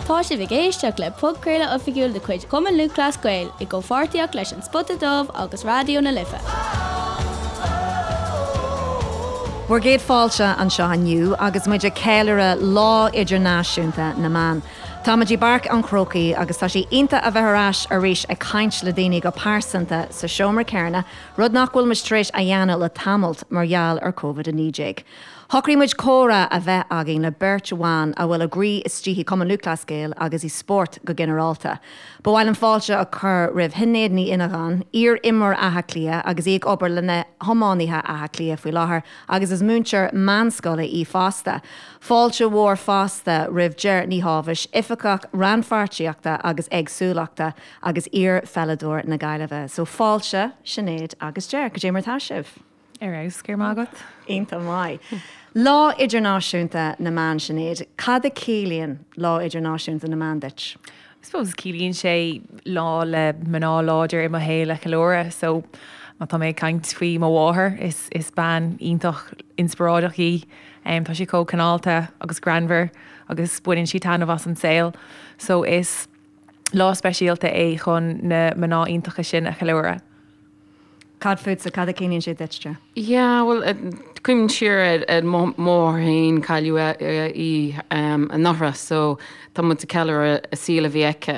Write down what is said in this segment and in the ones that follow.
Tá sibh ag éisteacht le podchraoladh oifigiúil de chuid Chumann Lúthchleas Gael i gcomhpháirtíocht leis An Spota Dubh agus Raidió na Life. Bhur gcéad fáilte anseo inniu agus muid ag ceiliúradh Lá Idirnáisiúnta na mBan. Tá muid i bPáirc an Chrócaigh agus tá sé iontach a bheith ar ais arís ag caint le daoine go pearsanta sa seomra céanna, rud nach bhfuil muid tar éis a dhéanamh le tamalt mar gheall ar Covid-19. Shocraigh muid comhrá a bheith againn le beirt bhan a bhfuil a gcroí istigh i Cumann Lúthchleas Gael agus i spórt go ginearálta. Ba mhaith liom fáilte a chur roimh Shinéad Ní Fhinneagáin, iar-imreoir Átha Cliath agus í ag obair le na hiománaithe Átha Cliath faoi láthair agus is múinteoir meánscoile í fosta. Fáilte mhór fosta roimh Ger Ní Shábhais, Oifigeach Rannpháirtíochta agus Éagsúlachta agus iar-pheileadóir na Gaillimhe. So fáilte, Sinéad agus Ger, cad é mar atá sibh? Ar fheabhas, go raibh maith agat. Iontach maith. Lá Idirnáisiúnta na mBan, Sinéad, cad a chiallaíonn Lá Idirnáisiúnta na mBan duit? I suppose ciallaíonn sé lá le mná láidir i mo shaol a cheiliúradh. So má tá mé ag caint faoi mo mháthair, is is bean iontach inspioráideach í. Tá sí chomh cineálta agus greannmhar agus baineann sí taitneamh as an saol. So is lá speisialta é chun na mná iontacha sin a cheiliúradh. Cad fútsa, cad a chiallaíonn sé duit, Ger? Yeah, bhuel, cuimhním siar ar mo mháthair féin, cailleadh í anuraidh, so tá muid ag ceiliúradh an saol a bhí aici.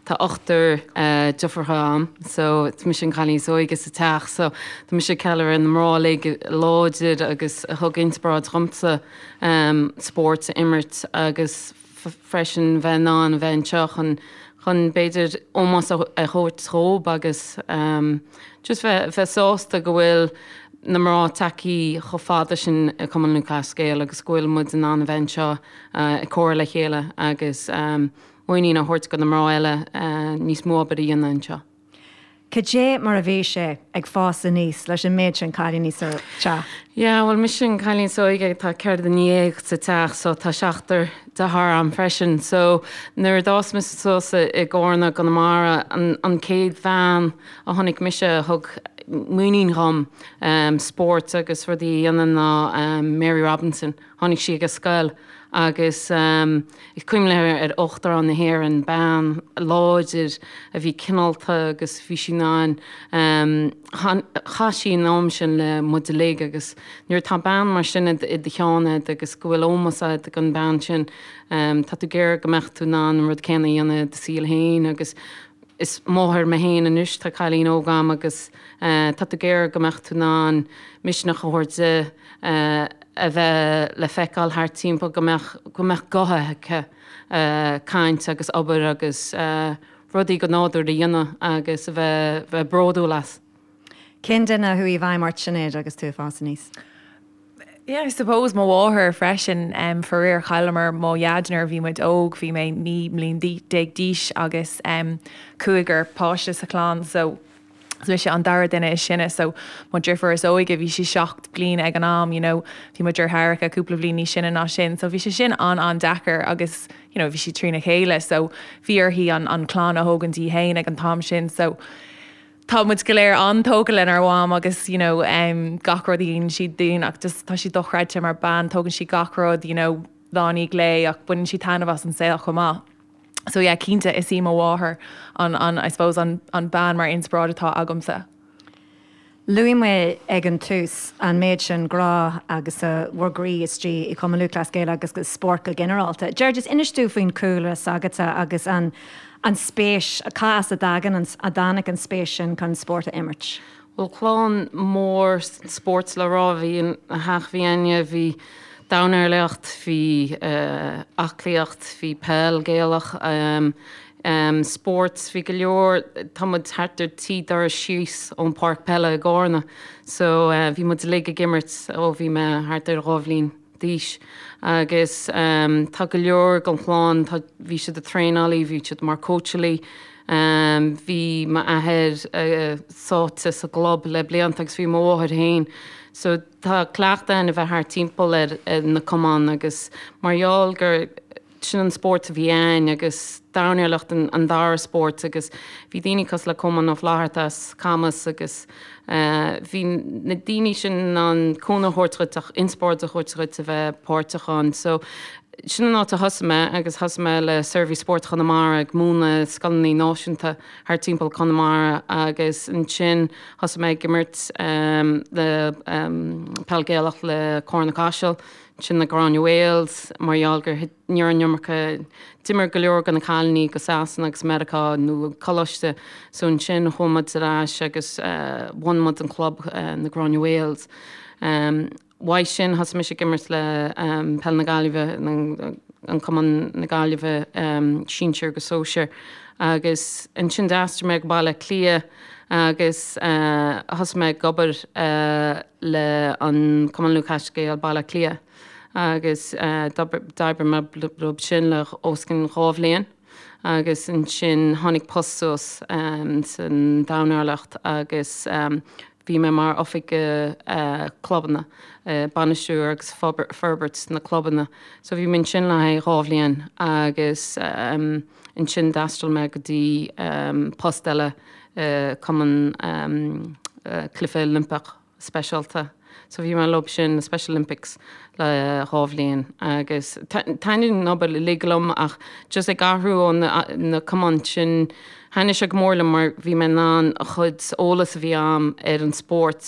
Tá ochtar deirfiúracha agam, so is mise an cailín is óige sa teach, so tá mise ag ceiliúradh na mná uilig láidir agus a thug inspioráid dhomsa spórt a imirt agus freisin bheith in ann a bheith anseo chun chun b'fhéidir ómós a thabhairt dhóibh agus just bheith bheith sásta go bhfuil na mná tagtha chomh fada sin i Cumann Lúthchleas Gael agus go bhfuil muid in ann a bheith anseo ag comhrá le chéile agus muinín a thabhairt do na mná eile níos mó obair a dhéanamh anseo. Cad é mar a bhí sé ag fás aníos leis an méid sin cailíní sa teach? Yeah, bhuel mise an cailín is óige, tá 14 duine sa teach so tá seachtar deartháir agam freisin. So nuair a d'fhás mise suas i gCarna i gConamara, an an chéad bhean a chonaic mise a thug muinín dhom spórt agus rudaí a dhéanamh ná Mary Robinson. Tháinig sí ag an scoil agus is cuimhin liom ar Uachtarán na hÉireann, bean láidir a bhí cineálta agus bhí sí in ann, chaith sí an am sin le muid uilig agus nuair atá bean mar sin i do cheann agat agus go bhfuil ómós agat don bhean sin, tá tú ag iarraidh go mbeadh tú in ann an rud céanna a dhéanamh i do saol féin agus is máthair mé féin anois, tá cailín óg agam agus tá tú ag iarraidh go mbeadh tú in ann misneach a thabhairt di a bheith le feiceáil thart timpeall, go mbeadh, go mbeadh guth aici caint agus obair agus rudaí go nádúr a dhéanamh agus a bheith, bheith bródúil as. Cén duine a chuaigh i bhfeidhm ort, Sinéad, agus tú ag fás aníos? Yeah, I suppose mo mháthair freisin. Faraor chailleamar mo dhaid nuair a bhí muid óg, bhí mé 19 mbliain d'aois agus cúigear páiste sa chlann so is mise an dara duine is sine so mo dhriofúr is óige bhí sí 7 bliain ag an am you know bhí mo deartháireacha cúpla bliain níos sine ná sin so bhí sé sin an-an-deacair agus you know bhí sí trína chéile so bhí uirthi an an clann a thógaint í féin ag an t-am sin so Tá muid go léir an-tógtha lenár mham agus you know gach rud a dhéanann sí dúinn ach just tá sí dochreidte mar bean, tógann sí gach rud you know lá i ndiaidh lae ach baineann sí taitneamh as an saol chomh maith. So yeah cinnte is í mo mháthair an an I suppose an an bean mar inspioráid atá agamsa. Luaigh mé ag an tús an méid sin grá agus bhur gcroí istigh i Cumann Lúthchleas Gael agus i spórt go ginearálta. Ger, just inis dúinn faoin cúlra s'agatsa agus an An spéis, cá as a dtagann an, a dtáinig an spéis sin chun spórt a imirt? Bhuel, clann mór spóirt le rá a bhí ina theach a bhí againne, bhí dornálaíocht, bhí aclaíocht, bhí peil Gaelach, spórt, bhí go leor, tá muid thart ar trí doras síos ón páirc peile i gCárna so bhí muid uilig ag imirt ó bhí mé thart ar dhá bhliain. d'aois agus tá go leor den chlann, tá, bhí siad ag traenálaí, bhí siad mar cóitseálaí, bhí m'athair sáite sa gclub le blianta agus bhí mo mháthair féin. So tá cleachtadh againn a bheith thart timpeall ar na cumainn agus mar gheall gur sin an spórt a bhí againn agus dornálaíocht an dara spórt agus bhí daoine cosúil le Colmán Ó Flatharta as Camas agus bhí na daoine sin in ann cúnamh a thabhairt dhuit ach inspioráid a thabhairt dhuit a bheith páirteach ann. So. Sin an áit a thosaigh mé agus thosaigh mé le Seirbhís Spóirt Chonamara ag múineadh scoileanna náisiúnta thar timpeall Conamara agus ansin thosaigh mé ag imirt le peil Gaelach le Cárna Caiseal, ansin na Gráinne Mhaols mar gheall gur ní raibh an iomarca, d'imir go leor de na cailíní go Sasana agus Meiriceá nó coláiste so ansin chuaigh muid ar ais agus bhunaigh muid an club na Gráinne Mhaols. Uaidh sin thosaigh mise ag imirt le Peil na Gaillimhe, an Cumann na Gaillimhe, sinsir agus sóisir, agus ansin d'aistrigh mé go Baile Átha Cliath agus thosaigh mé ag obair le an Cumann Lúthchleas Gael Baile Átha Cliath agus d'oibrigh mé leo sin le os cionn 2 bhliain agus ansin tháinig post suas san Domhain agus Bhí mé mar oifigeach clubanna, bainistiú agus forbairt na clubanna. So bhí mé ansin le haghaidh 2 bhliain agus ansin d'fhreastail mé go dtí post eile Cumann Cluiche Oilimpeach Speisialta. So bhí mé leo sin, na Special Olympics, le 2 bhliain agus taitníonn an obair uilig liom ach just ag athrú ó na cumainn sin, thaitnigh sé go mór liom mar bhí mé in ann an chuid eolas a bhí a'm ar an spórt,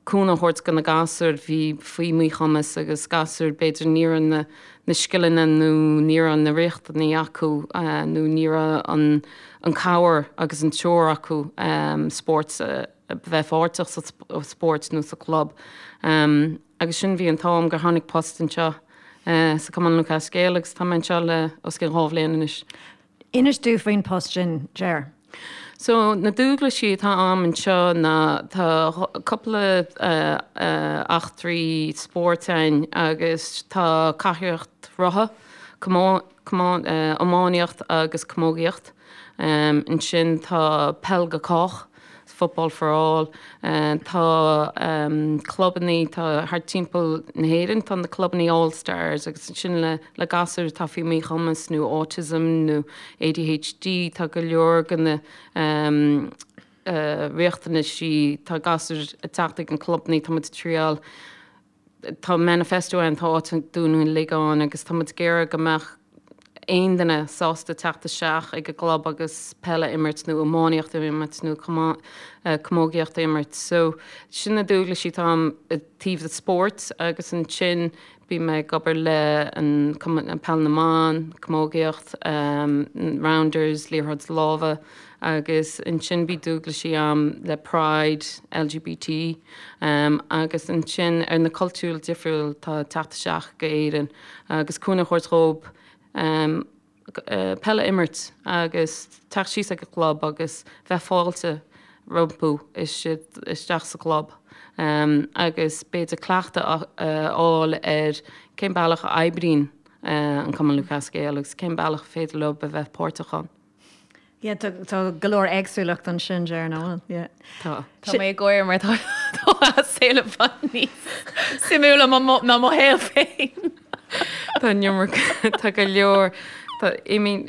cúnamh a thabhairt do na gasúir bhí faoi mhíchumas agus gasúir b'fhéidir ní raibh na na scileanna nó ní raibh na riachtanaí acu nó ní raibh an an cabhair agus an treoir acu spórt a bheith páirteach sa spórt nó sa chlub. Agus sin bhí an t-am gur tháinig post anseo sa Cumann Lúthchleas Gael agus tá mé anseo le os cionn 2 bhliain anois. Inis dúinn faoin post sin, Ger. So na dualgaisí atá a'm anseo ná tá cúpla eachtraí spóirt ann agus tá cathaoireacht rotha, iománaíocht agus camógaíocht. Ansin tá peil go cách, football for all, tá clubannaí, tá thart timpeall na hÉireann, tá na clubannaí All Stars agus ansin le le gasúir atá faoi mhíchumas nó autism nó ADHD, tá go leor de na riachtanaisí, tá gasúir ag teacht ag an clubannaí, tá muid ag triáil. Tá manifesto ann, tá áit dúinn uilig ann agus tá muid ag iarraidh go mbeadh aon duine sásta teacht isteach ag an gclub agus peil a imirt nó iománaíocht a imirt nó camógaíocht a imirt. So sin na dualgaisí atá a'm i dtaobh de spóirt agus ansin bím mé ag obair le an Cumann Peil na mBan, camógaíocht, Rounders, liathróid láimhe. Agus ansin bhí dualgaisí a'm le Pride, LGBT, agus ansin ar na cultúir difriúil atá ag teacht isteach go Éirinn agus cúnamh a thabhairt dhób peil a imirt agus teacht síos ag an gclub agus bheith fáilte rompu isteach sa gclub agus b'fhéidir cleachtadh a fháil ar cén bealach a oibríonn an Cumann Lúthchleas Gael agus cén bealach a féidir leo a bheith páirteach ann. Yeah, tá tá go leor éagsúlacht ansin, Ger, nach bhfuil? Yeah. Tá. Tá mé ag gáire mar tá tá a saol i bhfad níos suimiúla ná mo shaol féin. Tá an iomarca, tá go leor, tá, I mean,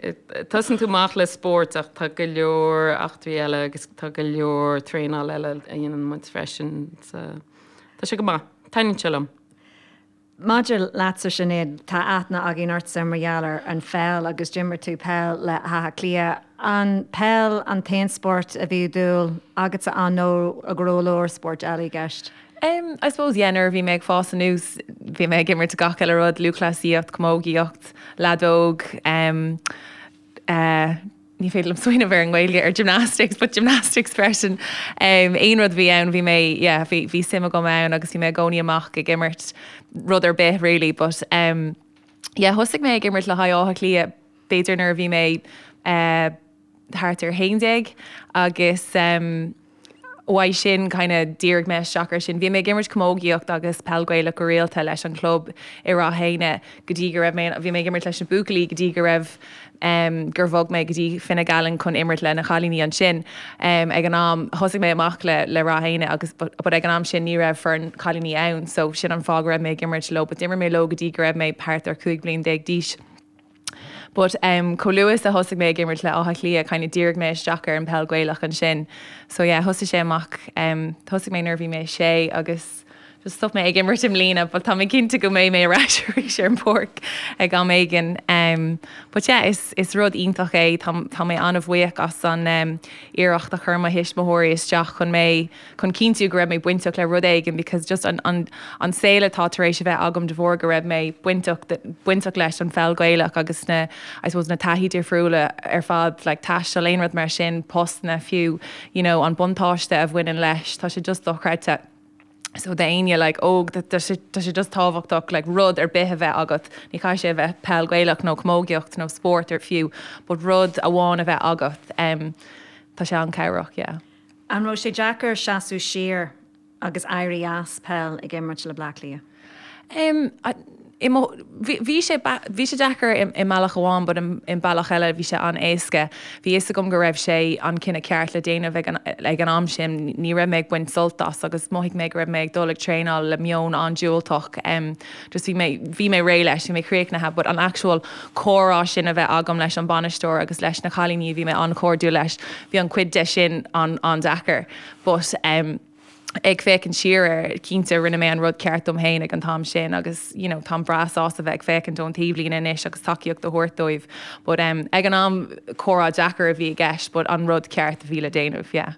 tosaíonn tú amach le spórt ach tá go leor eachtraí eile agus tá go leor traenáil eile a dhéanann muid freisin. So, tá sé go maith. Taitníonn sé liom. Maidir leatsa, Sinéad, tá aithne againn ortsa mar gheall ar an pheil agus d'imir tú peil le hÁth Cliath. An peil an t-aon spórt a bhí dúil agatsa ann nó an raibh go leor spóirt eile i gceist? Um, I suppose, yeah, nuair a bhí mé ag fás anuas, bhí mé ag imirt gach uile rud, lúthchleasaíocht, camógaíocht, leadóg, um, uh, ní féidir liom smaoineamh ar an nGaeilge ar gymnastics, but gymnastics freisin. Um, aon rud a bhí ann, bhí mé, yeah, bhí, bhí suim agam ann agus bhí mé i gcónaí amach ag imirt rud ar bith really, but um, yeah, thosaigh mé ag imirt le haghaidh Átha Cliath b'fhéidir nuair a bhí mé uh, thart ar 11 agus um, Uaidh sin kind of dhírigh mé isteach ar sin. Bhí mé ag imirt camógaíocht agus peil Gaelach go rialta leis an chlub i Ráth Éanna go dtí go raibh mé, bhí mé ag imirt leis na buachaillí go dtí go raibh em gur bhog mé go dtí Fine Gallen chun imirt le na chailíní ansin. Em ag an am thosaigh mé amach le le Ráth Éanna agus but but ag an am sin ní raibh foireann cailíní ann so sin an fáth go raibh mé ag imirt leo but d'imir mé leo go dtí go raibh mé thart ar 15 bliain d'aois. But um chomh luath is a thosaigh mé ag imirt le Áth Cliath kind of dhírigh mé isteach ar an peil Gaelach ansin. So yeah thosaigh sé amach um thosaigh mé nuair a bhí mé sé agus Just stop mé ag imirt i mbliana but tá mé cinnte go mbeidh mé ar ais arís ar an bpáirc ag am éigin. Um, but yeah, is, is rud iontach é, tá, tá mé an-bhuíoch as an um, iarracht a chuir mo thuismitheoirí isteach chun mé, chun cinntiú go raibh mé bainteach le rud éigin because just an, an, an saol atá tar éis a bheith agam de bharr go raibh mé bainteach, bainteach leis an pheil Gaelach agus na, I suppose na taithí difriúla ar fad, like taisteal, aon rud mar sin, postanna fiú, you know, an buntáiste a bhaineann leis, tá sé just dochreidte. So d'éinne like óg tá sé tá sé just tábhachtach like rud ar bith a bheith agat, ní chaithfidh sé a bheith peil Gaelach nó camógaíocht nó spórt ar fiú but rud amháin a bheith agat em tá sé an-chabhrach yeah. An raibh sé deacair seasamh siar agus éirí as peil ag imirt le Bleá Cliath? Em i mo, bhí sé, bhí sé deacair i mbealach amháin but i mbealach eile bhí sé an-éasca. Bhí fhios agam go raibh sé an cinneadh ceart le déanamh ag an, ag an am sin. Ní raibh mé ag baint sult as agus mhothaigh mé go raibh mé ag dul ag traenáil le meon an-diúltach. Just bhí mé, bhí mé réidh leis, bhí mé críochnaithe but an actual comhrá sin a bheith agam leis an bainisteoir agus leis na cailíní a bhí mé an-chairdiúil leis, bhí an cuid de sin an-deacair but em, ag féachaint siar air, cinnte rinne mé an rud ceart dom féin ag an t-am sin agus you know táim breá sásta bheith ag féachaint ón taobhlíne anois agus tacaíocht a thabhairt dóibh but um ag an am comhrá deacair a bhí i gceist but an rud ceart a bhí le déanamh, yeah.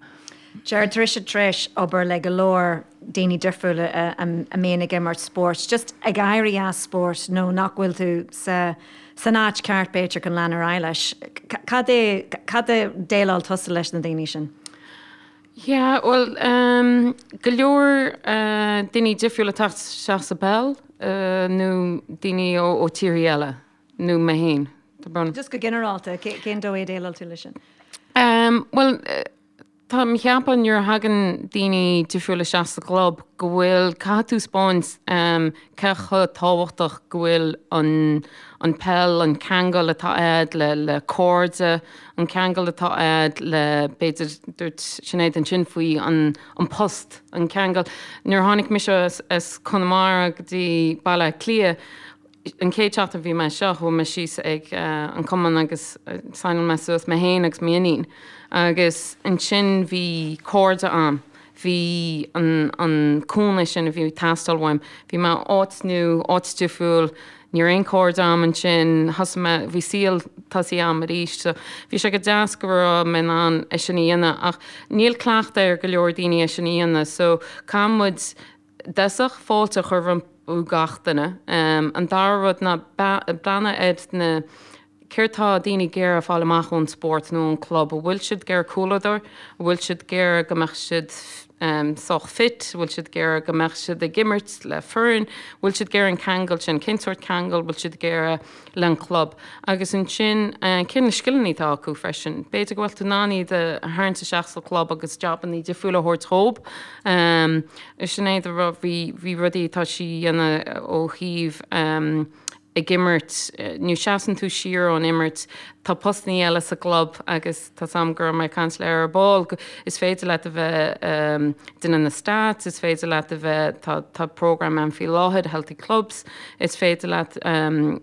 Gerard, tá tusa tar éis obair le go leor daoine difriúla a mbíonn ag imirt spóirt, just ag éirí as spórt nó nach bhfuil tú sa san áit ceart b'fhéidir chun lean ar aghaidh leis. Cad é, cad a déileáil tusa leis na daoine sin? Yeah, bhuel, ehm, go leor eh, daoine difriúla ag teacht isteach sa bpeil eh, nó daoine ó, ó tíorthaí eile, nó mé féin. Tá brón. Just go ginearálta, cén dóigh a déileáil tú leis sin? Ehm, bhuel, eh, tá mé ag ceapadh nuair a thagann daoine difriúla isteach sa gclub go bhfuil, caithfidh tú 'spáint ehm, cé chomh tábhachtach go bhfuil an an peil, an ceangal atá a'd le le cairde, an ceangal atá a'd le, b'fhéidir, dúirt Sinéad ansin faoi an an post, an ceangal. Nuair a tháinig mise as as Conamara go dtí Baile Átha Cliath, an chéad seachtain a bhí mé anseo, chuaigh mé síos ag an cumann agus signáil mé suas mé féin agus m'iníon agus ansin bhí cairde a'm. Bhí an an cúnamh sin a bhí ag teastáil uaim. Bhí mé áit nua, áit difriúil, ní raibh aon cairde a'm ansin, thosaigh mé, bhí saol tosaithe a'm arís. So bhí sé go deas go raibh mé in ann é sin a dhéanamh ach níl cleachtadh ar go leor daoine é sin a dhéanamh so caithfidh muid i dtosach fáilte a chur rompu gach duine. An dara rud ná breathnú ar na Céard tá daoine ag iarraidh fáil amach ón spórt nó ón club? An bhfuil siad ag iarraidh comhluadar? An bhfuil siad ag iarraidh go mbeadh siad sách fit? An bhfuil siad ag iarraidh go mbeadh siad ag imirt le foireann? An bhfuil siad ag iarraidh an ceangal sin? Cén sórt ceangal bhfuil siad ag iarraidh le an club? Agus ansin, cé na scileanna atá acu freisin? B'fhéidir go bhfuil tú in ann iad a tharraingt isteach sa chlub agus jabanna difriúla a thabhairt dhób. Sinéad, bhí rudaí atá sí a dhéanamh ó thaobh ag imirt, nó seasann tú siar ón imirt, tá postannaí eile sa gclub agus tá 's a'm go raibh mé ag caint léi ar ball, is féidir leat a bheith duine na stats, is féidir leat a bheith, tá tá program ann faoi láthair, Healthy Clubs, is féidir leat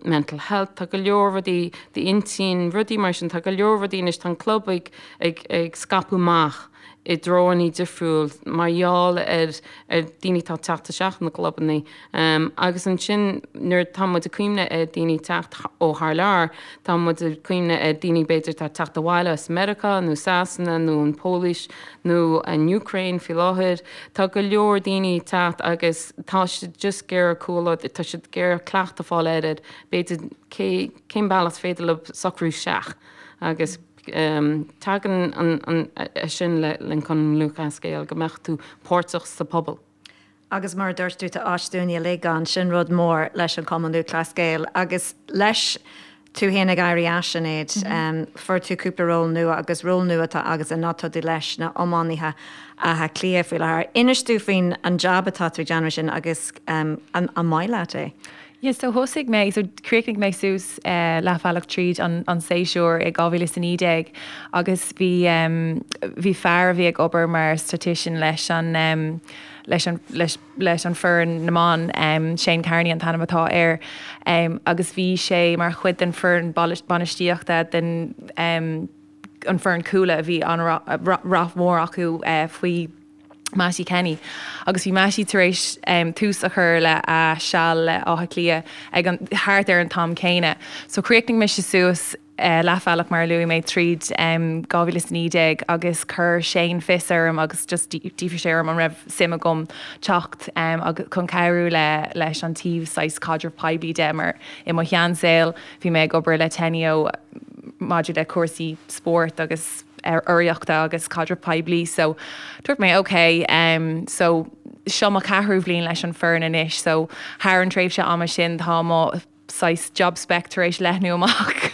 mental health, tá go leor rudaí d'intinn, rudaí mar sin, tá go leor rudaí anois, tá an club ag ag ag scaipeadh amach i dtreoannaí difriúil mar gheall ar ar daoine atá ag teacht isteach na gclubannaí. Agus ansin nuair atá muid ag cuimhneamh ar daoine teacht ó thar lear, tá muid ag cuimhneamh ar daoine b'fhéidir atá ag teacht abhaile as Meiriceá nó Sasana nó an Pholainn nó an Úcráin faoi láthair. Tá go leor daoine ag teacht agus tá siad just ag iarraidh comhluadar, tá siad ag iarraidh cleachtadh a fáil air, b'fhéidir cé, cén bealach is féidir leo socrú isteach agus tagann an, an, sin le, le Cumann Lúthchleas Gael go mbeadh tú páirteach sa pobal. Agus mar a dúirt tú, tá áit dúinne uilig ann, sin rud mór leis an Chumann Lúthchleas Gael. Agus leis tú féin ag éirí as, Sinéad, fuair tú cúpla ról nua agus ról nua atá agatsa ná tá tú leis na iománaithe Átha Cliath faoi láthair. Inis dúinn faoin an jab atá tú ag déanamh sin agus an maith leat é? Yeah, so thosaigh mé, so chríochnaigh mé suas leathbhealach tríd an an séasúr i 2019 agus bhí bhí fear a bhí ag obair mar statistician leis an leis an leis leis an foireann na mban, Shane Carney an t-ainm atá air, agus bhí sé mar chuid den foireann bainistíochta den an foireann Cuala a bhí an-rath mhór acu faoi. Mattie Kenny agus bhí Mattie tar éis tús a chur le a seal le Áth Cliath ag an, thart ar an t-am céanna. So chríochnaigh mise suas leathbhealach mar a luaigh mé tríd 2019 agus chuir Shane fios orm agus just d'fhiafraigh sé orm an raibh suim agam teacht agus chun cabhrú le leis an taobh saghas caidreamh poiblí de mar i mo sheansaol bhí mé ag obair le Teneo maidir le cúrsaí spóirt agus urraíochta agus caidreamh poiblí so dúirt mé ok so seo mo cheathrú bhliain leis an foireann anois so thar an tréimhse ama sin tá mo saghas job spec tar éis leathnú amach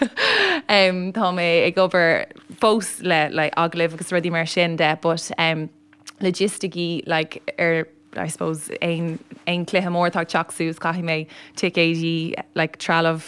tá mé ag obair fós le le agallaimh agus rudaí mar sin de but logisticí like ar I suppose aon aon cluiche mór atá ag teacht suas caithfidh mé ticéidí like trealamh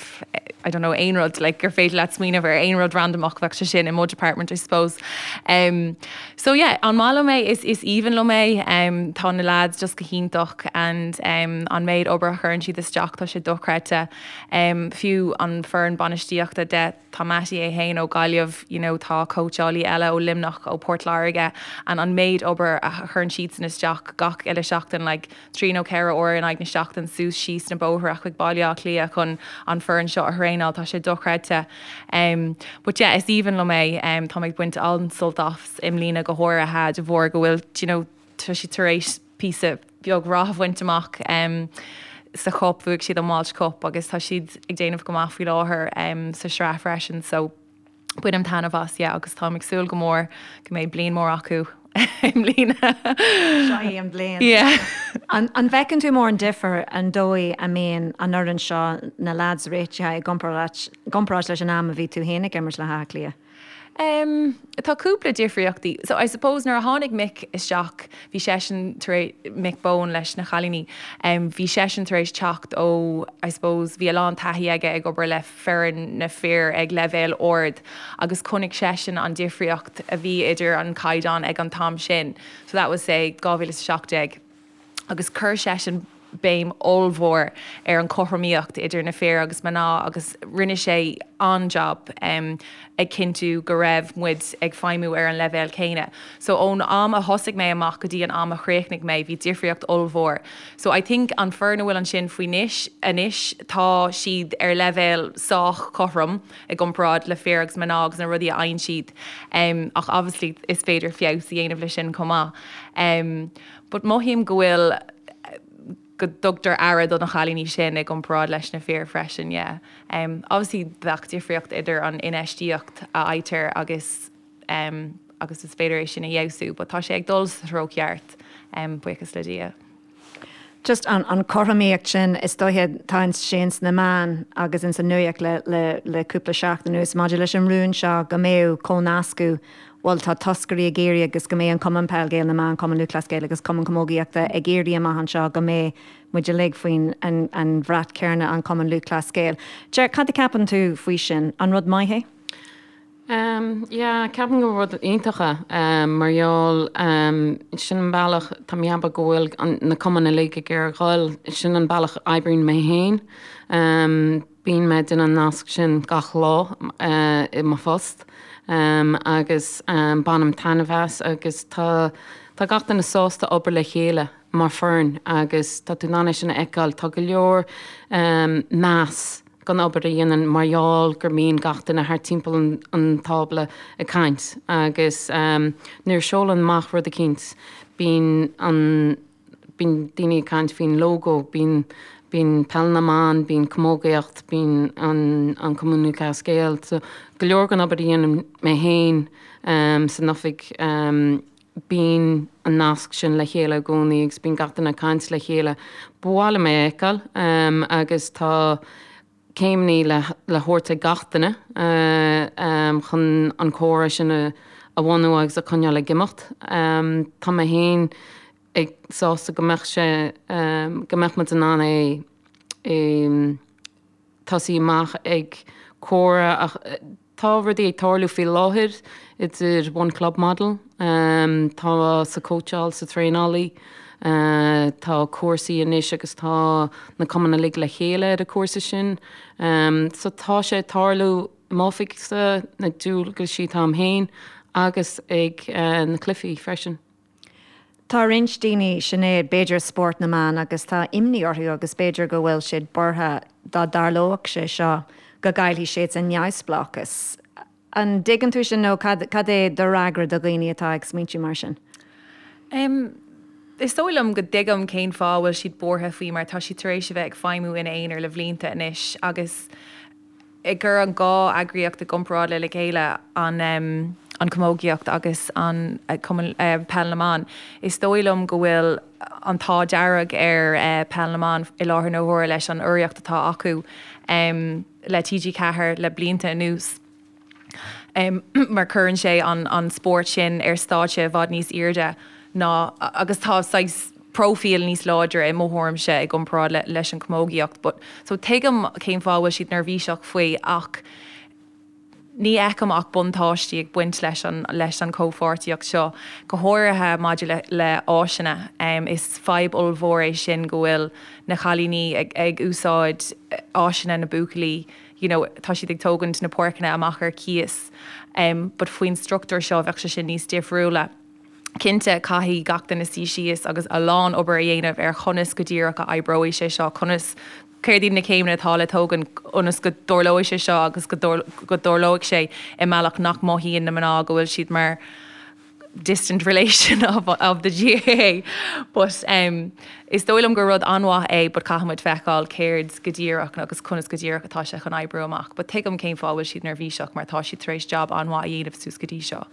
I don't know aon rud like gur féidir leat smaoineamh ar aon rud randamach bheadh sé sin i mo department I suppose. Um, so yeah, an maith liom é is is aoibhinn liom é um, tá na lads just go hiontach and um, an méid obair a chuireann siad isteach tá sé dochreidte um, fiú an foireann bainistíochta de Tá Mattie é fhéin ó Gaillimh, you know, tá cóitseálaí eile ó Luimneach, ó Port Láirge and an méid obair a chuireann siadsan isteach gach uile seachtain, like trí nó ceithre uair in aghaidh na seachtain suas síos na bóithre chuig Baile Átha Cliath chun an foireann seo a thraenáil, tá sé dochreidte. Um, but yeah, is aoibhinn liom é, um, tá mé ag baint an-sult as i mbliana go háirithe de bharr go bhfuil, you know, tá siad tar éis píosa beag rath a bhaint amach sa chup, bhuaigh siad an Walsh Cup agus tá siad ag déanamh go maith faoi láthair sa sraith freisin so bainim taitneamh as, yeah, agus táim ag súil go mór go mbeidh bliain mór acu i mbliana. Seo í an bhliain. Yeah. An bhfeiceann tú mórán difear an dóigh a mbíonn an fhoireann seo, na leaids réitithe i gcomparáid leis an am a bhí tú féin ag imirt le hÁth Cliath? Em, tá cúpla difríochtaí. So I suppose nuair a tháinig Mick isteach, bhí seisean tar éis, Mick Bohan leis na chailíní, em, bhí seisean tar éis teacht ó, I suppose, bhí a lán taithí aige ag obair le foireann na fir ag leibhéal ard agus chonaic seisean an difríocht a bhí idir an caighdeán ag an t-am sin. So that was say 2017. agus chuir seisean béim ollmhór ar an chothromaíocht idir na fir agus mná agus rinne sé an-jab ag cinntiú go raibh muid ag feidhmiú ar an leibhéal céanna. So ón am a thosaigh mé amach go dtí an am a chríochnaigh mé bhí difríocht ollmhór. So I think an foireann a bhfuil ansin faoi anois, anois tá siad ar leibhéal sách cothrom i gcomparáid le fir agus mná agus na rudaí a fhaigheann siad ach obviously is féidir feabhas a dhéanamh le sin chomh maith. But mothaím go bhfuil, go dtugtar aire do na chailíní sin i gcomparáid leis na fir freisin, yeah. Obviously bheadh difríocht idir an infheistíocht a fhaightear agus agus is féidir é sin a fheabhsú, but tá sé ag dul sa treo ceart, buíochas le Dia. Just an an cothromaíocht sin, is dóiche, tá sé ins na meáin agus ins an nuaíocht le le le cúpla seachtain anuas maidir leis an rún seo go mbeadh comhnascadh bhuel tá toscairí ag iarraidh agus go mbeidh an Cumann Peil Gael na mBan, Cumann Lúthchleas Gael agus Cumann Camógaíochta ag iarraidh amach anseo go mbeidh muid uilig faoin an bhrat céanna, an Cumann Lúthchleas Gael. Ger, cad a ceapann tú faoi sin? An rud maith é? Yeah, ceapaim gur rud iontach é mar gheall sin an bealach, tá mé ag ceapadh go bhfuil na cumainn uilig ag iarraidh dhul, sin an bealach a oibríonn mé féin. Bíonn mé ag déanamh an nasc sin gach lá i mo phost agus bainim taitneamh as agus tá tá gach duine sásta obair le chéile mar foireann agus tá tú in ann é sin a fheiceáil. Tá go leor meas don obair a dhéanann mar gheall gur mbíonn gach duine thart timpeall an tábla ag caint agus nuair a seolann amach rud eicínt bíonn an bíonn daoine ag caint faoin lógó, bíonn, bíonn Peil na mBan, bíonn Camógaíocht, bíonn an, an Cumann Lúthchleas Gael. So, go leor den obair a dhéanaim mé féin san oifig, bíonn an nasc sin le chéile i gcónaí agus bíonn gach duine ag caint le chéile. Ba mhaith liom é a fheiceáil agus tá céimeanna le le thabhairt ag gach duine chun an comhrá sin a bhunú agus a choinneáil ag imeacht. Tá mé féin ag sásta go mbeadh sé, go mbeadh muid in ann é a tosaí amach ag comhrá ach tá rudaí ag tarlú faoi láthair idir One Club Model, tá sa cóitseáil, sa traenálaí, tá cúrsaí anois agus tá na cumainn uilig le chéile ar an cúrsa sin. So tá sé ag tarlú i m'oifigse, na dualgaisí atá a'm féin agus ag na cluichí freisin. Tá roinnt daoine, Sinéad, b'fhéidir spórt na mban agus tá imní orthu agus b'fhéidir go bhfuil siad buartha dá dtarlódh sé seo go gcaillfidh siad a neamhspleáchas. An dtuigeann tú sin nó cad cad é do fhreagra do dhaoine atá ag smaointiú mar sin? Em, is dóigh liom go dtuigim cén fáth a bhfuil siad buartha faoi mar tá siad tar éis a bheith ag feidhmiú ina aonar le blianta anois agus ag cur an dhá eagraíocht i gcomparáid le le chéile, an an chamógaíocht agus an Cumann Peil na mBan, is dóigh liom go bhfuil an t-ádh dearg ar Peil na mBan i láthair na huaire leis an urraíocht atá acu le TG4 le blianta anuas mar cuireann sé an spórt sin ar stáitse i bhfad níos airde ná agus tá saghas próifíl níos láidre i mo thuairimse i gcomparáid leis an chamógaíocht but so tuigim cén fáth a bhfuil siad neirbhíseach faoi ach ní fheicim ach buntáistí ag baint leis an leis an chomhpháirtíocht seo, go háirithe maidir le le áiseanna. Is fadhb ollmhór é sin go bhfuil na cailíní ag ag úsáid áiseanna na buachaillí you know tá siad ag tógaint na páirceanna amach ar cíos but faoin struchtúr seo bheadh sé sin níos difriúla. Cinnte, caithfidh gach duine suí síos agus a lán obair a dhéanamh ar chonas go díreach a oibreoidh sé seo, conas, céard iad na céimeanna atá le tógaint ionas go dtarlóidh sé seo agus go dtarlóidh sé i mbealach nach mothaíonn na mná go bhfuil siad mar distant relation of, of the GAA. But um, is dóigh liom gur rud an-mhaith é but caithfidh muid feiceáil céard go díreach agus conas go díreach atá sé chun oibriú amach. But tuigim cén fáth a bhfuil siad neirbhíseach mar tá siad tar éis jab an-mhaith a dhéanamh suas go dtí seo.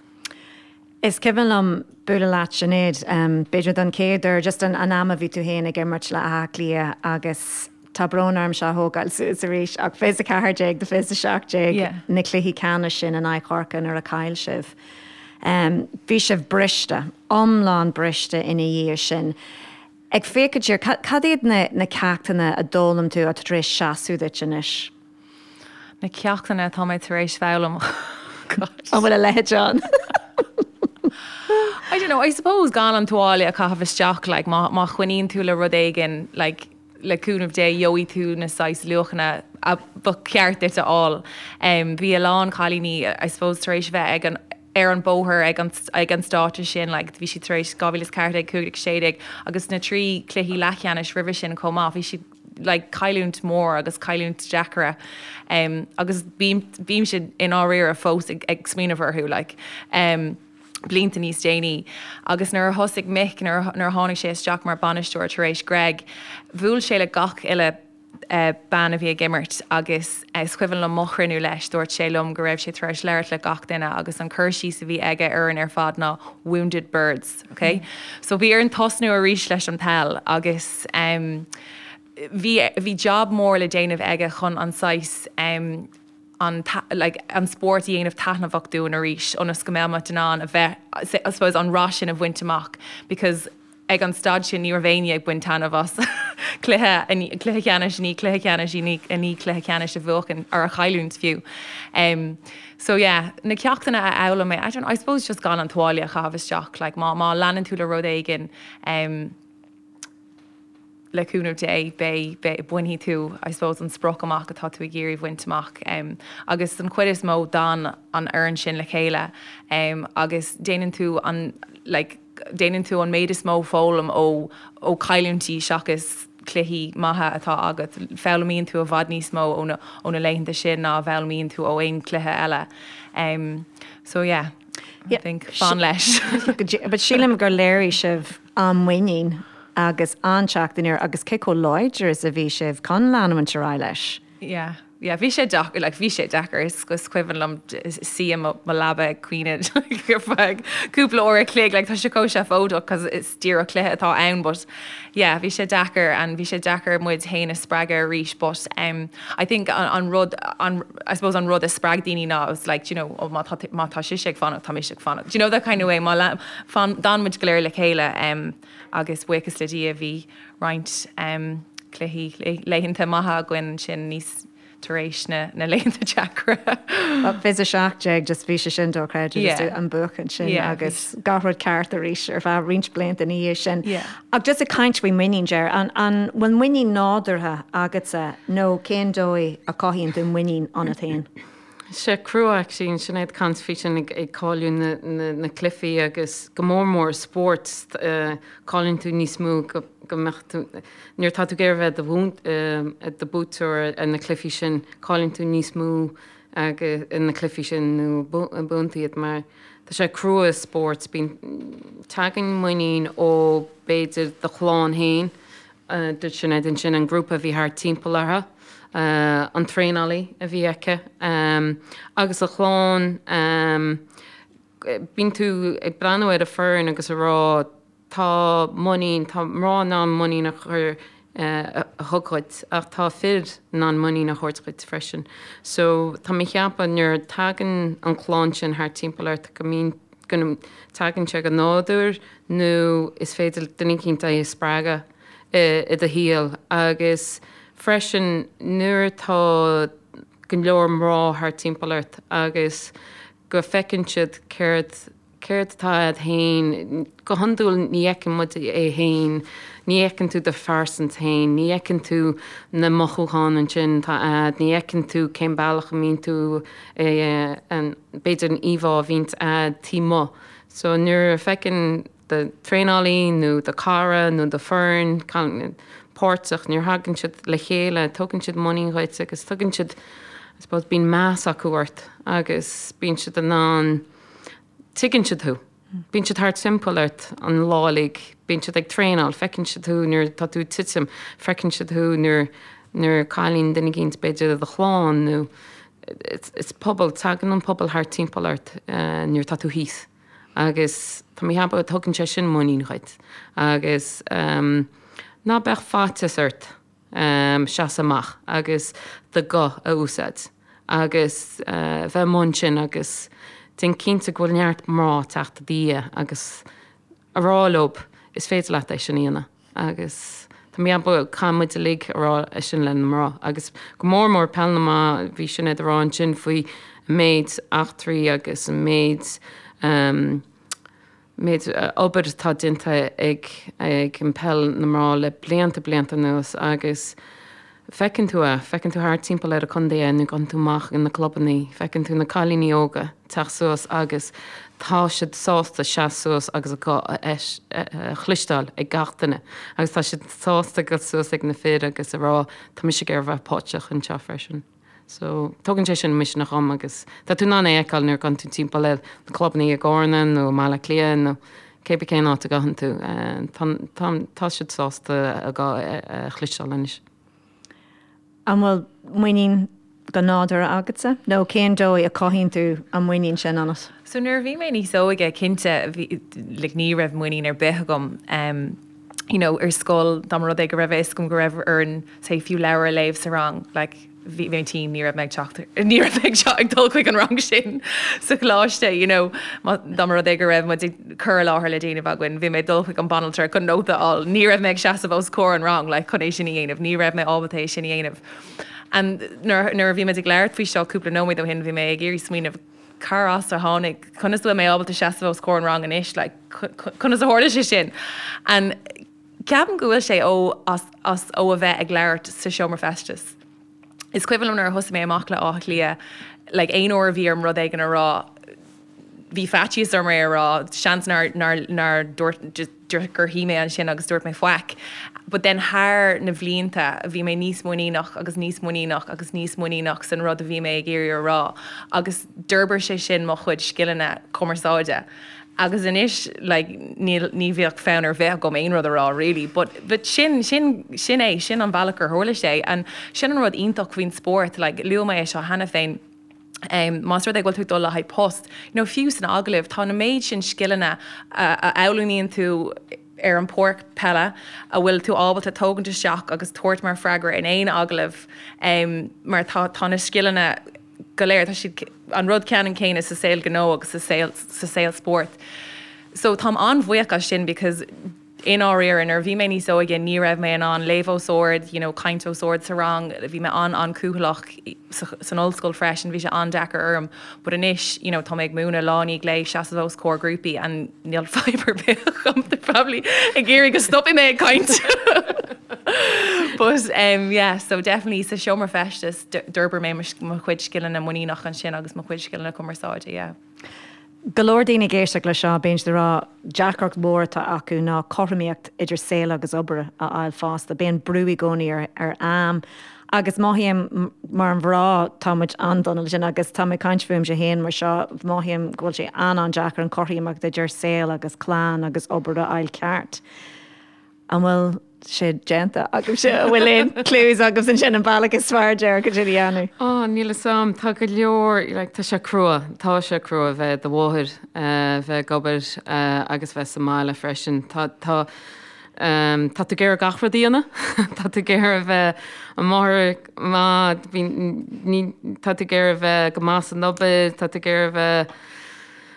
Is cuimhin liom bualadh leat, Sinéad, b'fhéidir don chéad uair, just an am a bhí tú féin ag imirt le Áth Cliath agus tá brón orm seo a thógáil suas arís ach 24 do 27 na cluichí ceannais sin in aghaidh Chorcaí nuair a chaill sibh. Bhí sibh briste, iomlán briste ina dhiaidh sin. Ag féachaint siar, cad iad na ceachtanna a d'fhoghlaim tú atá tar éis seasamh duit anois? Na ceachtanna atá mé tar éis foghlaim. God. An bhfuil a leithéid ann? I don't know, I suppose gan an tuáille a chaitheamh isteach, like, má, má choinníonn tú le rud éigin, like, le cúnamh Dé, gheobhaidh tú na saghas luachanna a ba cheart duit a fháil. Um, bhí a lán cailíní, I suppose, tar éis bheith ag an, ar an bóthar ag an, ag an stáitse sin, like, bhí siad tar éis 2014, 15, 16 agus na trí cluichí leathcheannais roimhe sin chomh maith, bhí siad like cailliúint mór agus cailliúint deacra um, agus bím, bímse i ndáiríre fós ag, ag smaoineamh orthu like, um, blianta níos déanaí. Agus nuair a thosaigh Mick, nuair, nuair a tháinig sé isteach mar bainisteoir tar éis Greg, bhuail sé le gach uile uh, bean a bhí ag imirt agus is cuimhin liom mo chruinniú leis, dúirt sé liom go raibh sé tar éis labhairt le gach duine agus an cur síos a bhí aige orainn ar fad ná wounded birds. Ok? So bhí orainn tosnú arís leis an peil agus em bhí bhí job mór le déanamh aige chun an saghas em an like an spórt a dhéanamh taitneamhach dúinn arís ionas go mbeadh muid in ann a bheith I suppose an rath sin a bhaint amach because ag an staid sin ní raibh éinne ag baint taitneamh as cluiche cluiche ceannais i ndiaidh cluiche ceannais i ndiaidh cluiche ceannais a bhuachan or a chailliúint fiú. Um, so yeah, na ceachtanna a fhoghlaim mé, I don't I suppose just gan an tuáille a chaitheamh isteach, like má, má leanann tú le rud éigin um, le cúnamh Dé, beidh, beidh, bainfidh tú, I suppose, an sprioc amach atá tú ag iarraidh bhaint amach. Um, agus den chuid is mó d'fhan an fhoireann sin le chéile um, agus déanann tú an, like, déanann tú an méid is mó foghlaim ó ó chailliúintí seachas cluichí maithe atá agat. Foghlaimíonn tú i bhfad níos mó ó na ó na laethanta sin ná a bhfoghlaimíonn tú ó aon chluiche eile. Um, so yeah, I think fan leis. But sílim gur léirigh sibh an-mhuinín agus an-teacht aniar agus cé chomh láidir is a bhí sibh chun leanúint ar aghaidh leis. Yeah, yeah, bhí sé deacair, like, bhí sé deacair, is is cuimhin liom suí i mo mo leaba ag caoineadh like, ar feadh cúpla uair a chloig, like, tá sé chomh seafóideach cos is díreach cluiche atá ann, but yeah, bhí sé deacair and bhí sé deacair muid féin a spreagadh arís, but um, I think an, an rud, an, I suppose an rud a spreag daoine ná it was like, do you know, oh, má tá, má tá sise ag fanacht, tá mise ag fanacht. Do you know that kind of way, má le, fan, d'fhan muid go léir le chéile um, agus buíochas le Dia bhí roinnt um, cluichí laethanta maithe againn ansin níos tar éis na na laethanta deacra. 2017 just bhí sé sin dochreidte just an buachan sin agus gach rud ceart arís ar feadh roinnt blianta ina dhiaidh sin. Ach just ag caint faoi muinín, Ger, an an bhfuil muinín nádúrtha agatsa nó cén dóigh a chothaíonn tú muinín ionat féin? Sé crua actually Sinéad ag caint faoi sin ag cailleadh na cluichí agus go mór mór spórt cailleann tú níos mó go mbeadh tú nuair atá tú ag iarraidh bheith i do buaiteoir ar na cluichí sin cailleann tú níos mó agus na cluichí sin nó buann tú iad mar tá sé crua i spórt bíonn tagann muinín ó b'fhéidir do chlann féin Dúirt Sinéad ansin an grúpa a bhí thart timpeall uirthi, an traenálaí a bhí aici agus a chlann. Bíonn tú ag breathnú ar an foireann agus ag rá tá muinín, tá mná in ann muinín a chur a thug dhuit ach tá fir in ann muinín a thabhairt dhuit freisin. So tá mé ag ceapadh nuair a tagann an clann sin thart timpeall ort go mbíonn, go dtagann sé go nádúr nó is féidir duine eicínt é a spreagadh i do shaol agus freisin nuair atá go leor mná thart timpeall ort agus go bhfeiceann siad céard céard atá a'd féin, go hiondúil ní fheiceann muid é féin, ní fheiceann tú do phearsant féin, ní fheiceann tú na mothúcháin ansin atá a'd, ní fheiceann tú cén bealach a mbíonn tú b'fhéidir an íomhá a bhíonns a'd taobh amuigh. So nuair a feiceann do traenálaí nó do cara nó do foireann páirteach, nuair a thagann siad le chéile, tugann siad muinín dhuit agus tugann siad, I suppose, bíonn meas acu ort agus bíonn siad in ann, tuigeann siad thú. Bíonn siad thart timpeall ort an lá uilig, bíonn siad ag traenáil, feiceann siad thú nuair atá tú ag titim, feiceann siad thú nuair nuair a cailleann duine eicínt b'fhéidir i do chlann nó is pobal, tagann an pobal thart timpeall ort nuair atá tú thíos agus tá mé ag ceapadh tugann sé sin muinín dhuit agus ná beadh faitíos ort seasamh amach agus do ghuth a úsáid agus bheith amuigh ansin agus déan cinnte go bhfuil neart mná ag teacht i do dhiaidh agus a rá leob is féidir leat é sin a dhéanamh. Agus tá mé ag ceapadh caithfidh muid uilig a rá é sin le na mná agus go mór mór peil na mban, bhí Sinéad ag rá ansin faoi an méid eachtraí agus an méid méid obair atá déanta ag ag an peil na mná le blianta blianta anuas agus Feiceann tú é, feiceann tú thart timpeall ar an contae é nuair a ghabhann tú amach ag na clubannaí, feiceann tú na cailíní óga teacht suas agus tá siad sásta seasamh suas agus a guth a chloisteáil ag gach duine agus tá siad sásta dul suas ag na fir agus a rá tá mise ag iarraidh bheith páirteach anseo freisin. So, tugann sé sin misneach dhom agus tá tú in ann é a fheiceáil nuair a ghabhann tú timpeall ar na clubannaí i gCarna nó i mBaile Átha Cliath nó cé bith cén áit a ghabhann tú, tá, tá, tá siad sásta a guth a chloisteáil anois. An bhfuil muinín go nádúrtha agatsa nó cén dóigh a cothaíonn tú an muinín sin ionat? So nuair a bhí mé níos óige, cinnte, bhí, like, ní raibh muinín ar bith agam. You know, ar scoil, dá mba rud é go raibh a fhios agam go raibh orainn, say, fiú leabhar a léamh sa rang, like, bhí mé tinn, ní raibh mé ag teacht, ní raibh mé ag ag dul chuig an rang sin sa choláiste, you know, dá mba rud é go raibh muid ag cur i láthair le déanamh againn, bhí mé ag dul chuig an banaltra chun nóta a fháil, ní raibh mé ag seasamh os comhair an rang, like, chun é sin a dhéanamh, ní raibh mé ábalta é sin a dhéanamh. And nuair, nuair a bhí muid ag labhairt faoi seo cúpla nóiméad ó shin, bhí mé ag iarraidh smaoineamh cár as a tháinig, conas a bhfuil mé ábalta seasamh os comhair an rang anois, like, conas a tharla sé sin? And Ceapaim go bhfuil sé ó as as ó a bheith ag labhairt sa seomra feistis. Is cuimhin liom nuair a thosaigh mé amach le Áth Cliath, like aon uair a bhí orm rud éigin a rá, bhí faitíos orm é a rá, seans nár nár nár dúirt just gur shuigh mé ansin agus dúirt mé faic. But then thar na bhlianta bhí mé níos muiníneach agus níos muiníneach agus níos muiníneach san rud a bhí mé ag iarraidh a rá agus d'fhorbair sé sin mo chuid scileanna cumarsáide. Agus anois like níl, ní bheadh fonn ar bith agam aon rud a rá really but, but sin, sin, sin é, sin an bealach gur tharla sé and sin an rud iontach faoin spórt like luaigh mé é seo cheana féin um más rud é go bhfuil tú ag dul le haghaidh post, you know fiú san agallamh tá na méid sin scileanna a, a fhoghlaimíonn tú ar an pháirc peile a bhfuil tú ábalta tógaint isteach agus tabhairt mar freagra in aon agallamh um mar tá, tá na scileanna go léir, tá siad an rud ceannann céanna sa saol gnó agus sa saol, sa saol spóirt. So táim an-bhuíoch as sin because i ndáiríre nuair a bhí mé níos óige ní raibh mé in ann léamh os ard, you know, caint os ard sa rang, bhí mé an-an-cúthaileach san ollscoil freisin, bhí sé an-deacair orm. But anois, you know, tá mé ag múineadh lá i ndiaidh lae, seasamh os comhair grúpaí and níl fadhb ar bith agam, they're probably ag iarraidh go stopfaidh mé ag caint. But um, yeah, so definitely sa seomra feistis d'fhorbair mé mo chuid scileanna muiníneach ansin agus mo chuid scileanna cumarsáide, yeah. Go leor daoine ag éisteacht le seo, bíonn siad ag rá deacracht mhór atá acu ná cothromaíocht idir saol agus obair a fháil fosta. Bíonn brú i gcónaí ar ar am agus mothaím mar mhná tá muid an-dona le sin agus tá mé ag caint fúmsa féin mar seo, mothaím go bhfuil sé an-an-deacair an chothromaíocht idir saol agus clann agus obair a fháil ceart. An bhfuil sé déanta agaibhse? An bhfuil aon clues agaibh ansin an bealach is fearr dearcadh sin a dhéanamh? Ó, níl 'fhios a'm. Tá go leor, like, tá sé crua. Tá sé crua a bheith i do mháthair, bheith ag obair agus bheith sa mbaile freisin. Tá, tá, tá tú ag iarraidh gach rud a dhéanamh. Tá tú ag iarraidh a bheith i máthair maith, bhí, ní, tá tú ag iarraidh a bheith go maith san obair, tá tú ag iarraidh a bheith,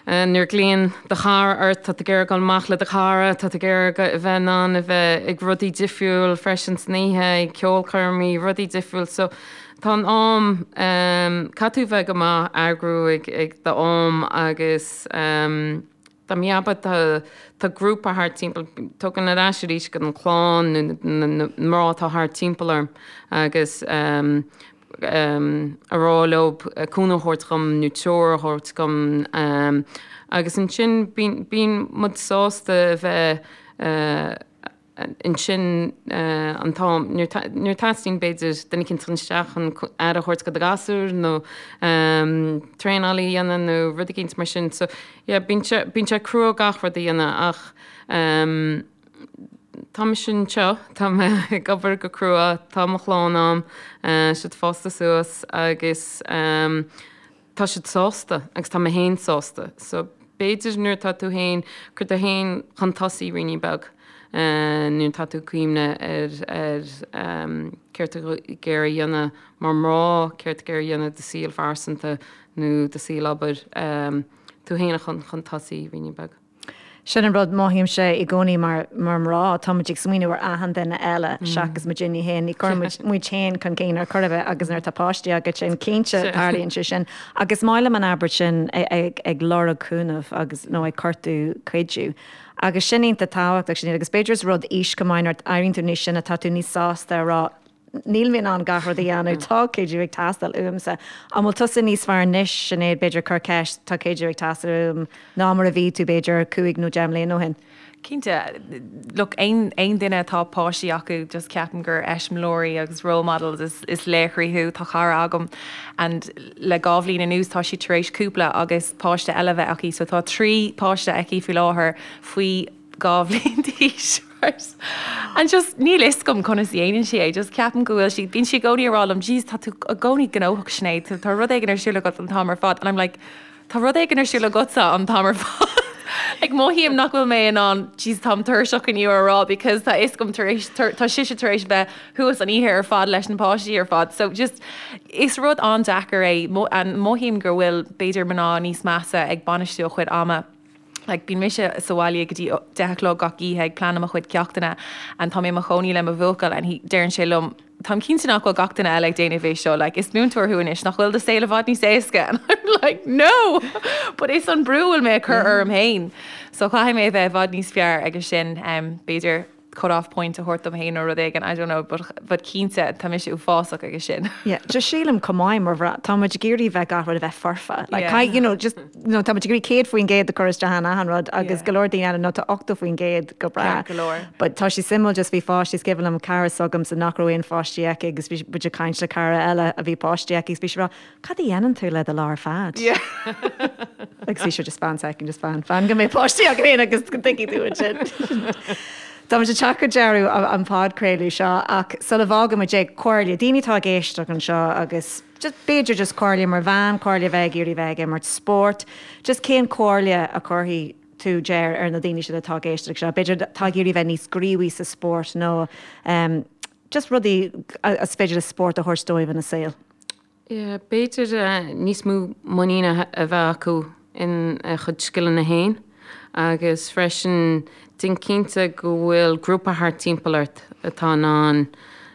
Nuair a ghlaonn do chara ort, tá tú ag iarraidh dul amach le do chara, tá tú ag iarraidh a bheith in ann a bheith ag rudaí difriúil freisin san oíche, ag ceolchoirmí, rudaí difriúil. So tá an am, caithfidh tú bheith go maith eagrú ag ag do am agus dá mbeadh tá tá grúpa thart timpeall, tugann ar ais arís go an clann nó na na mná atá thart timpeall orm agus a rá leo cúnamh a thabhairt dhom nó treoir a thabhairt dhom agus ansin bíonn muid sásta a bheith ansin an t-am nuair a teastaíonn b'fhéidir duine eicínt chun isteach chun aire a thabhairt do do ghasúr nó traenáil a dhéanamh nó rud eicínt mar sin. So yeah bíonn sé bíonn sé crua gach rud a dhéanamh ach Tá mise anseo, tá mé ag obair go crua, tá mo chlann a'm, siad fásta suas agus tá siad sásta agus tá mé féin sásta. So b'fhéidir nuair atá tú féin, cuir tú féin chun tosaigh ruainnín beag nuair atá tú ag cuimhneamh ar ar céard tá tú ag iarraidh a dhéanamh mar mná, céard tá tú ag iarraidh a dhéanamh do saol phearsanta nó do saol obair, tú féin a chun chun tosaigh ruainnín beag. Sin an rud, mothaímse i gcónaí mar mar mná, tá muid ag smaoineamh ar achan duine eile seachas muidinne féin. Ní chuireann muid muid féin chun cinn ar chor ar bith agus nuair atá páistí agat sin, cinnte tarlaíonn sé sin. Agus is maith liom an abairt sin ag ag lorg cúnamh agus nó ag cuartú cuidiú. Agus sin iontach tábhachtach sin agus b'fhéidir is rud aois chomh maith nuair a éiríonn tú níos sine tá tú níos sásta a rá Níl mé in ann gach rud a dhéanamh, tá cuidiú ag teastáil uaimse. An bhfuil tusa níos fearr anois, Sinéad, b'fhéidir, cur ceist, tá cuidiú ag teastáil uaim, ná mar a bhí tú, b'fhéidir, cúig nó deich mbliana ó shin? Cinnte. Look, aon aon duine atá páistí acu, just ceapaim gur eiseamláirí agus role models is is laochraí thú. Tá cara agam and le dhá bhliain anuas tá sí tar éis cúpla agus páiste eile a bheith aici, so tá trí páiste aici faoi láthair faoi 2 bhliain d'aois, right? And just níl fhios agam conas a dhéanann sí é, just ceapaim go bhfuil sí, bíonn sí i gcónaí ag rá liom, jeez tá tú i gcónaí gnóthach Sinéad, tá rud éigin ar siúl agat an t-am ar fad and I'm like, tá rud éigin ar siúl agatsa an t-am ar fad. Like mothaím nach bhfuil mé in ann, jeez táim tuirseach inniu a rá because tá fhios agam tar éis, tá sise tar éis bheith thuas an oíche ar fad leis na páistí ar fad. So just is rud an-deacair é and mothaím go bhfuil b'fhéidir mná níos measa ag bainistiú a chuid ama. Like, bíonn mise sa bhaile go dtí 10 a chlog gach oíche ag pleanáil mo chuid ceachtanna and tá mé i mo chónaí le mo bhuachaill and he, deireann sé liom, táim cinnte nach bhfuil gach duine eile ag déanamh é seo, like, is múinteoir thú anois, nach bhfuil do saol i bhfad níos éasca? And I'm like, no! But is an brú a bhfuil mé ag cur orm féin. So caithfidh mé a bheith i bhfad níos fearr aige sin, um, b'fhéidir cut off point a thabhairt dom féin nó rud éigin, I don't know, but, but cinnte tá mise uafásach aige sin. Yeah, just sílim chomh maith mar mhná, tá muid ag iarraidh bheith gach rud a bheith foirfe. Like, yeah. you know, just, you know, tá muid ag iarraidh 100% a chur isteach in achan rud agus yeah. go leor daoine eile nó tá 80% go breá. Ceart go leor. But tá sé suimiúil just bhí pháistí is cuimhin liom cara s'agamsa nach raibh aon pháistí aici agus bhí muid ag caint le cara eile a bhí páistí aici agus bhí sí ag rá, Cad a dhéanann tú le do lá ar fad? Agus bhí sé just fan second, just fan, fan go mbeidh páistí agat féin agus go dtuigfidh tú ansin. Tá muid ag teacht go deireadh an podchraoladh seo ach sula bhfágann muid é, comhairle, daoine atá ag éisteacht anseo agus just b'fhéidir just comhairle mar bhean, comhairle a bheith ag iarraidh bheith ag imirt spóirt, just cén comhairle a chuirfidh tú Ger ar na daoine sin atá ag éisteacht seo, b'fhéidir atá ag iarraidh bheith níos gníomhaí sa spórt nó just rudaí is féidir le spórt a thabhairt dóibh ina saol. Yeah, b'fhéidir níos mó muiníne a bheith acu ina chuid scileanna féin agus freisin déan cinnte go bhfuil grúpa thart timpeall ort atá in ann,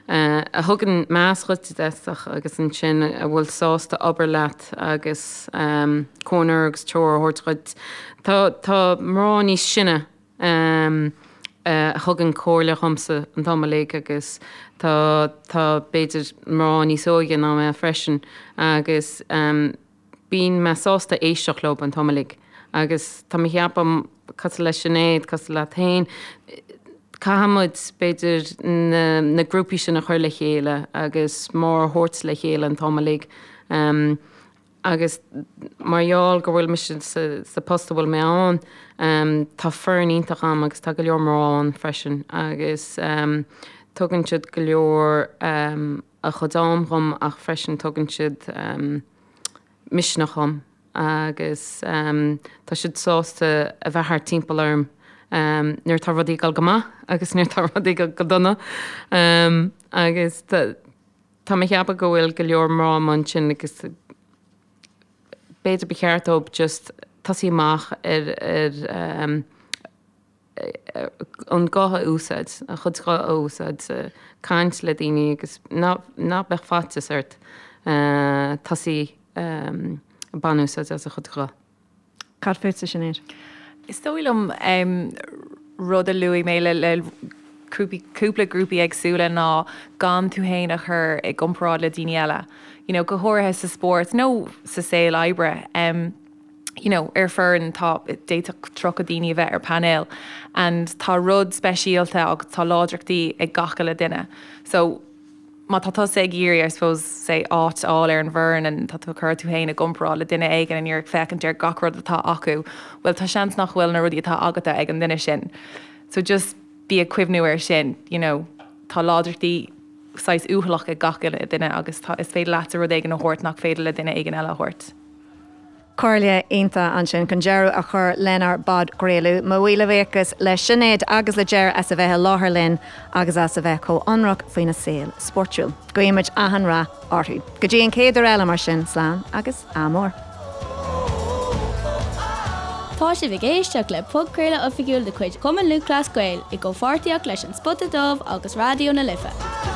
a thugann meas dhuit i dtosach agus ansin a bhfuil sásta obair leat agus comhairle agus treoir a thabhairt dhuit. Tá, tá mná níos sine. a thugann comhairle dhomsa an t-am uilig agus tá tá b'fhéidir mná níos óige ná mé freisin agus bíonn mé sásta éisteacht leo an t-am uilig agus tá mé ag ceapadh cosúil le Sinéad, cosúil leat féin, caithfidh muid b'fhéidir na na grúpaí sin a chur le chéile agus mná a thabhairt le chéile an t-am uilig. Agus mar gheall go bhfuil mise sa post a bhfuil mé ann, tá foireann iontach agam agus tá go leor mná ann freisin agus tugann siad go leor a chuid am dhom ach freisin tugann siad misneach dhom agus tá siad sásta a bheith thart timpeall orm nuair atá rudaí ag dul go maith agus nuair atá rudaí ag dul go dona agus Tá mé ag ceapadh go bhfuil go leor mná amuigh ansin agus b'fhéidir ba cheart dóibh just tosaí amach ar ar an guth a úsáid, a chuid guth a úsáid, caint le daoine agus ná ná beadh faitíos ort tosaí ag baint úsáid as a chuid guth. Cad fútsa, Sinéad? Is dóigh liom rud a luaigh mé le le cúpla grúpaí éagsúla ná gan tú féin a chur i gcomparáid le daoine eile. You know, go háirithe sa spórt nó sa saol oibre. You know, ar foireann tá, d'fhéadfadh 30 daoine a bheith ar painéal and tá rud speisialta agus tá láidreachtaí ag gach uile duine. So, má tá tusa ag iarraidh, I suppose, say, áit a fháil ar an bhfoireann and tá tú ag cur tú féin i gcomparáid le duine éigin and you're ag féachaint ar gach rud atá acu, bhuel tá seans nach bhfuil na rudaí atá agatsa ag an duine sin. So just bí ag cuimhniú air sin, you know, tá láidreachtaí saghas uathúlach ag gach uile duine agus tá, is féidir leatsa rud éigin a thabhairt nach féidir le duine éigin eile a thabhairt. Comhairle iontach ansin chun deireadh a chur lenár bpodchraoladh. Mo mhíle buíochas le Sinéad agus le Ger as a bheith i láthair linn agus as a bheith chomh hionraic faoina saol spórtúil. Guímid achan rath orthu. Go dtí an chéad uair eile mar sin, slán agus ádh mór. Tá sibh ag éisteacht le podchraoladh oifigiúil de chuid Chumann Lúthchleas Gael i gcomhpháirtíocht leis An Spota Dubh agus Raidió na Life.